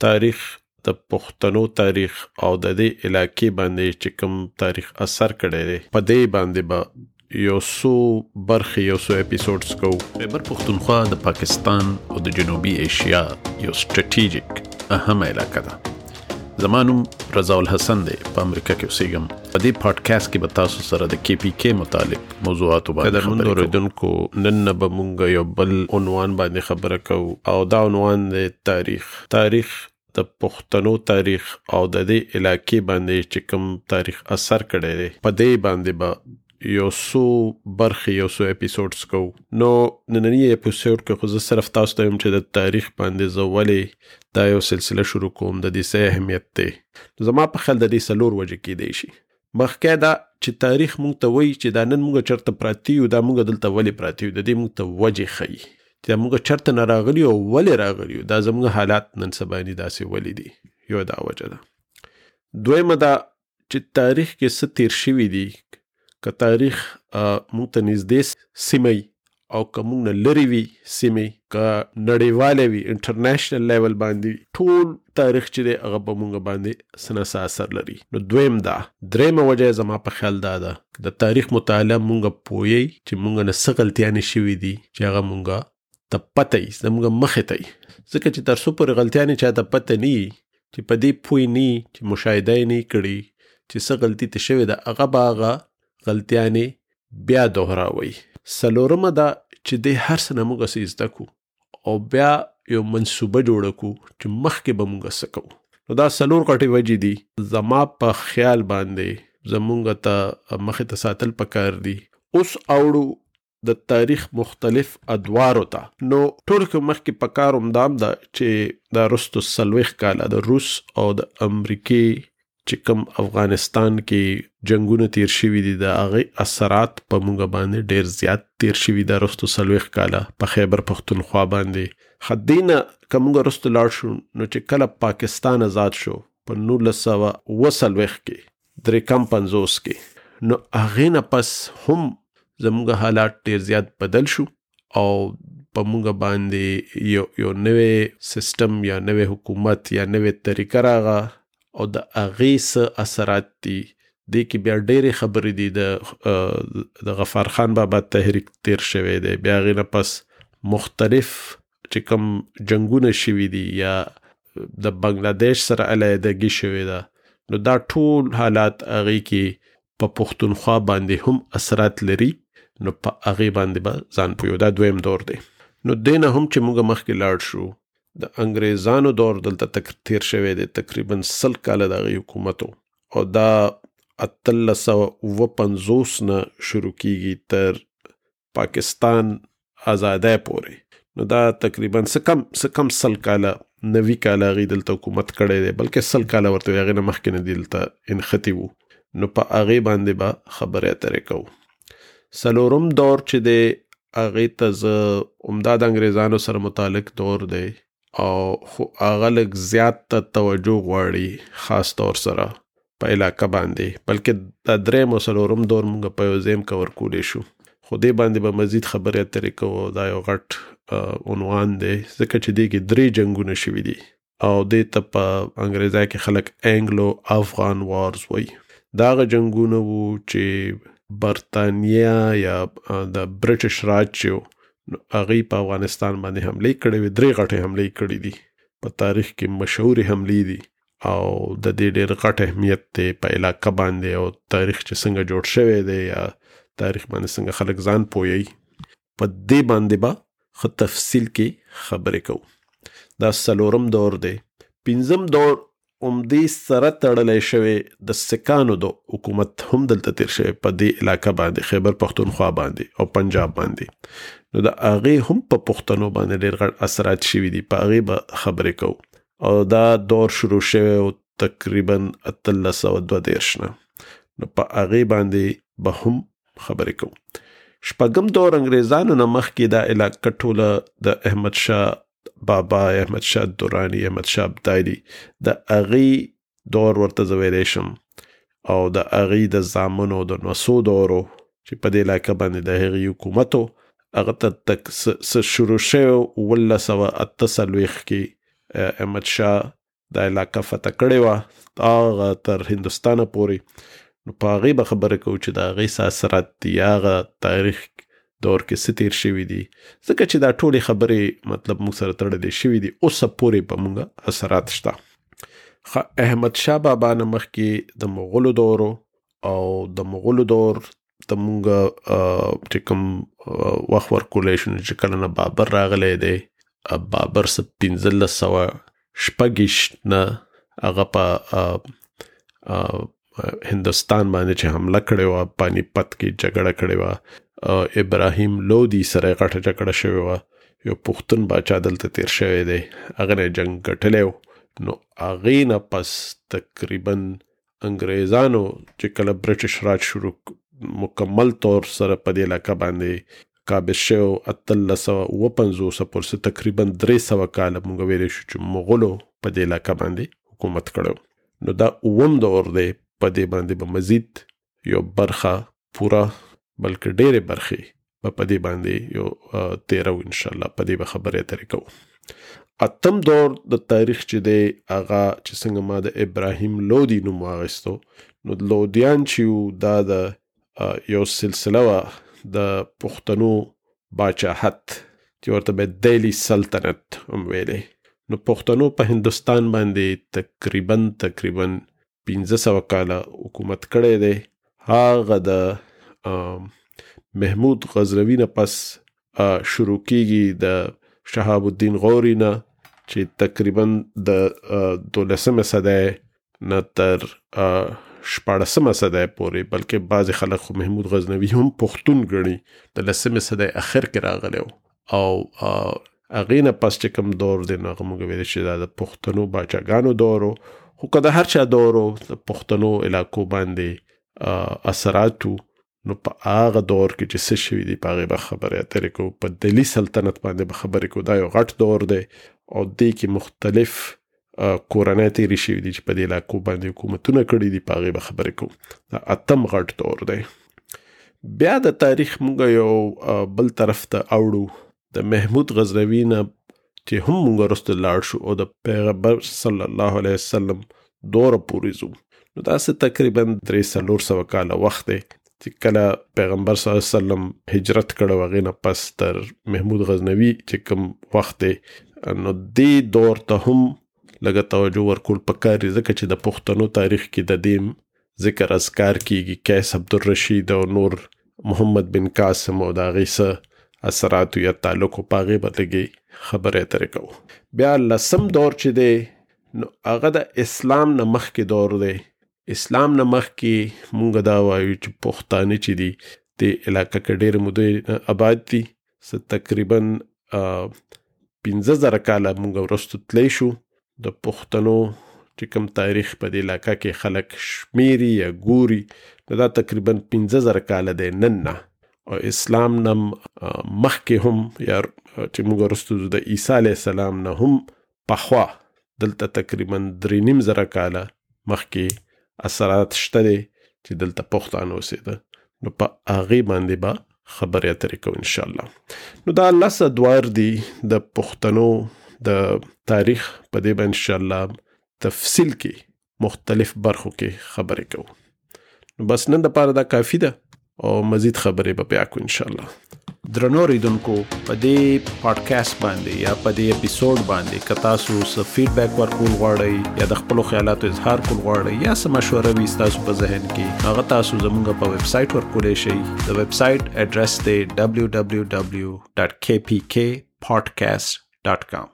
تاریخ د پښتنو تاریخ او د دې علاقې باندې چې کوم تاریخ اثر کړی دی په دې باندې به یو څو برخې یو څو اپیسوډز کوو. خیبر پښتونخوا د پاکستان او د جنوبي ایشیا یو سټریټیجیک اهم علاقه ده. زما نوم رضا الحسن دی، په امریکا کې اوسېږم. په دې پادکاسټ کې به تاسو سره د KPK متعلق موضوعاتو باندې خبرې کوو. اوریدونکو نن به موږ یو بل عنوان باندې خبره کوو او دا عنوان دی تاریخ د پښتنو تاریخ او د دې علاقې باندې چې کوم تاریخ اثر کړی دی په دې باندې به یو څو برخې یو څو اپیسوډز کوو. نو نننی اپیسوډ کې خو زه صرف تاسو ته یم چې د تاریخ باندې زه ولې دا یو سلسله شروع کوم، د دې څه اهمیت دی. زما په خیال د دې څلور وجې کېدی شي. مخکې دا چې تاریخ موږ ته وایي چې دا نن موږ چېرته پراته یو، دا موږ دلته ولې پراته یو، د دې موږ ته وجې ښیي چې موږ چېرته نه راغلي او ولې راغلي یو، دا زموږ حالات نن سبا داسې ولې دي. یو دا وجه ده. دویمه دا چې تاریخ کې څه تیر شوي دي، که تاریخ موږ ته نږدې سیمه او که موږ نه لرې وي سیمې، که نړیواله وي انټرنیشنل لیول باندې، ټول تاریخ چې دی هغه په موږ باندې څه نه څه اثر لري. نو دویم دا. دریمه وجه زما په خیال دا ده د تاریخ مطالعه موږ پوهیږي چې موږ نه څه غلطیانې شوي دي چې هغه موږ ته پته وي، زموږ مخې ته وي. ځکه چې تر څو پورې غلطیانې چا ته پته نه وي، چې په دې پوه نه وي، چې مشاهده یې نه کړي چې څه غلطي ته شوې ده، هغه به هغه غلطیانې بیا دوهراوي. څلورمه دا چې د هر څه نه موږ څه زده کړو او بیا یو منصوبه جوړه کړو چې مخکې به موږ څه کوو. نو دا څلور غټې وجې دي. زما په خیال باندې زموږ ته مخې ته ساتل پکار دي. اوس اوړو د تاریخ مختلف ادوارو ته. نو ټول کې مخکې پکار همدام ده چې دا رستو 40 کاله د روس او د امریکې چې کوم افغانستان کې جنگونه تیر شوي دي، د هغې اثرات په موږ باندې ډېر زیات تیر شوي ده رستو 40 کاله په خیبر پښتونخوا باندې. خدینه که موږ رستو لاړ شو نو چې کله پاکستان آزاد شو په 1949 کې 53 کې، نو هغې نه پس هم زموږ حالات ډېر زیات بدل شو او په موږ باندې یو نوې سیستم یا نوې حکومت یا نوې طریقه راغه او د هغې څه اثرات دي. دې کې بیا ډېرې خبرې دي. د غفار خان بابا تحریک تیر شوی دی، بیا هغې نه پس مختلف چې کوم جنګونه شوي دي یا د بنګلادیش سره علیحدګي شوې ده. نو دا ټول حالات هغې کې په پښتونخوا باندې هم اثرات لري. نو په هغې باندې به ځان پوهیو. دا دویم دور دی. نو دې نه هم چې موږ مخکې لاړ شو، د انګریزانو دور دلته تیر شوی دی، تقریبا 100 کاله د هغې حکومتو، او دا 1859 نه شروع کیږي تر پاکستان آزادۍ پورې. نو دا تقریبا څه کم 100 کاله 90 کاله هغې دلته حکومت کړی دی، بلکې 100 کاله ورته وي، هغې نه مخکې نه دلته انختی وو. نو په هغې باندې به خبرې اترې کوو. څلورم دور چې دی هغې ته زه عمده د انګریزانو سره متعلق دور دی او خو هغه لږ زیات توجه غواړي، خاص طور سره په علاقه باندې. بلکې دا دریم او څلورم دور موږ په یو ځای کې ورکولی شو، خو دې باندې به مزید خبرې اترې کوو. دا یو غټ عنوان دی ځکه چې دې کې 3 جنګونه شوي دي او دې ته په انګریزۍ کې خلک انګلو افغان وارز وایي. دا هغه جنګونه وو چې برطانیه یا د برټش راج چې هغې په افغانستان باندې حملې کړې وې. 3 غټې حملې کړې دي، په تاریخ کې مشهورې حملې دي او د دې ډېر غټ اهمیت دی په علاقه باندې او تاریخ چې څنګه جوړ شوی دی یا تاریخ باندې څنګه خلک ځان پوهیي. په دې باندې به ښه تفصیل کې خبرې کوو. دا څلورم دور دی. پنځم دور عمدې سره تړلی شوی د سکانو د حکومت هم دلته تیر شوی په دې علاقه باندې، خیبر پښتونخوا باندې او پنجاب باندې. نو د هغې هم په پښتنو باندې ډېر غټ اثرات شوي دي، په هغې به خبرې کوو. او دا دور شروع شوی او تقریبا 1832 نه، نو په هغې باندې به هم خبرې کوو. شپږم دور انګریزانو نه مخکې دا علاقه ټوله د احمد شاه بابا، احمد شاه درانی، احمد شاه ابدالي، د هغې دور ورته زه ویلی شم، او د هغې د زامنو د نوسو دورو چې په دې علاقه باندې د هغې حکومتو هغه ته شروع شوی 1948 کې احمد شاه دا علاقه فتح کړې وه هغه تر هندوستانه پورې. نو په هغې به خبره کوو چې د هغې څه اثرات دي، هغه تاریخ دور کې څه تیر شوي دي، ځکه چې دا ټولې خبرې مطلب موږ سره تړلې شوي دي. اوسه پورې په موږ اثرات شته. احمد شاه بابا نه مخکې د مغولو دورو او د مغولو دور د موږ چې کوم وخت ورکولی شو چې کله نه بابر راغلی دی، بابر څه 1526 نه هغه په هندوستان باندې چې حمله کړې وه، پانی پت کې جګړه کړې وه، ابراهیم لودي سره غټه جګړه شوې وه، یو پښتون باچا دلته تیر شوی دی، هغه نه جنګ ګټلی و. نو هغې نه پس تقریبا انګریزانو چې کله برټش راج شروع مکمل طور سره په دې علاقه باندې قابض شو 1859 پورې تقریبا 300 کاله موږ ویلی شو چې مغولو په دې علاقه باندې حکومت کړی. نو دا اووم دور دی، په دې باندې به مزید یو برخه پوره بلکې ډېرې برخې په دې باندې یو تیرو انشاءالله، په دې به خبرې اترې کوو. اتم دور د تاریخ چې دی هغه چې څنګه ما د ابراهیم لودي نوم واخیستو، نو لودیان چې دا د یو سلسله وه د پښتنو باچاحت چې ورته به دهلی سلطنت هم ویلی. نو پښتنو په هندوستان باندې تقریبا 1500 کاله حکومت کړی دی. هغه د محمود غزنوي نه پس شروع کیږي د شهاب الدین غوري نه چې تقریبا د 12مه صدۍ نه تر 14مه صدۍ پورې، بلکې بعضې خلک خو محمود غزنوي هم پښتون ګڼي، د 10مې صدۍ اخر کې راغلی و. او هغې نه پس چې کوم دور دی نو هغه موږ ویلی چې دا د پښتنو باچاګانو دور و. خو که د هر چا دور و د پښتنو علاقو باندې اثراتو، نو په هغه دور کې چې څه شوي دي په هغې به خبرې اترې کوو. په دهلي سلطنت باندې به خبرې کوو. دا یو غټ دور دی او دې کې مختلف کورنۍ تېرې شوي دي چې په دې علاقو باندې حکومتونه کړي دي، په هغې به خبرې کوو. دا اتم غټ دور دی. بیا د تاریخ موږ یو بل طرف ته اوړو، د محمود غزنوي نه چې هم موږ وروسته لاړ شو او د پیغمبر صلی الله علیه وسلم دوره پورې ځو. نو داسې تقریبا 300 کاله وخت دی چې کله پیغمبر صلی الله علیه وسلم هجرت کړو، هغې نه پس تر محمود غزنوي چې کوم وخت دی، نو دې دور ته هم لږه توجه ورکول پکار دی، ځکه چې د پښتنو تاریخ کې د دې ذکر اذکار کیږي. قیس عبدالرشید او نور محمد بن قاسم او د هغې څه اثراتو یا تعلق په هغې به لږې خبرې اترې کوو. بیا 10م دور چې دی نو هغه د اسلام نه مخکې دور دی. اسلام نه مخکې مونږ دا وایو چې پښتانه چې دي د علاقه کې ډېر مودې آباد دي، تقریبا 15,000 کاله مونږ وروسته تللی شو. د پښتنو چې کوم تاریخ په دې علاقه کې خلک شمیري یا ګوري دا تقریبا 15,000 کاله دی نن نه. او اسلام نه مخکې هم یا چې مونږ وروسته د عیسی علیه السلام نه هم پخوا دلته تقریبا 3,500 کاله مخکې اثرات شته دی چې دلته پښتانه اوسېده. نو په هغې باندې به خبرې اترې کوو انشاءالله. نو دا 10 ادوار دي د پښتنو د تاریخ، په دې به انشاءالله تفصیل کې مختلف برخو کې خبرې کوو. نو بس نن دپاره دا کافي ده او مزید خبرې به بیا کوو انشاءالله. درنو ریدونکو، په دې پادکاسټ باندې یا په دې اپیسوډ باندې که تاسو څه فیډبیک ورکول غواړئ یا د خپلو خیالاتو اظهار کول غواړئ یا څه مشوره وي ستاسو په ذهن کې، هغه تاسو زموږ په ویب سایټ ورکولی شئ. د ویب سایټ ایډرس دی www.kpkpodcast.com.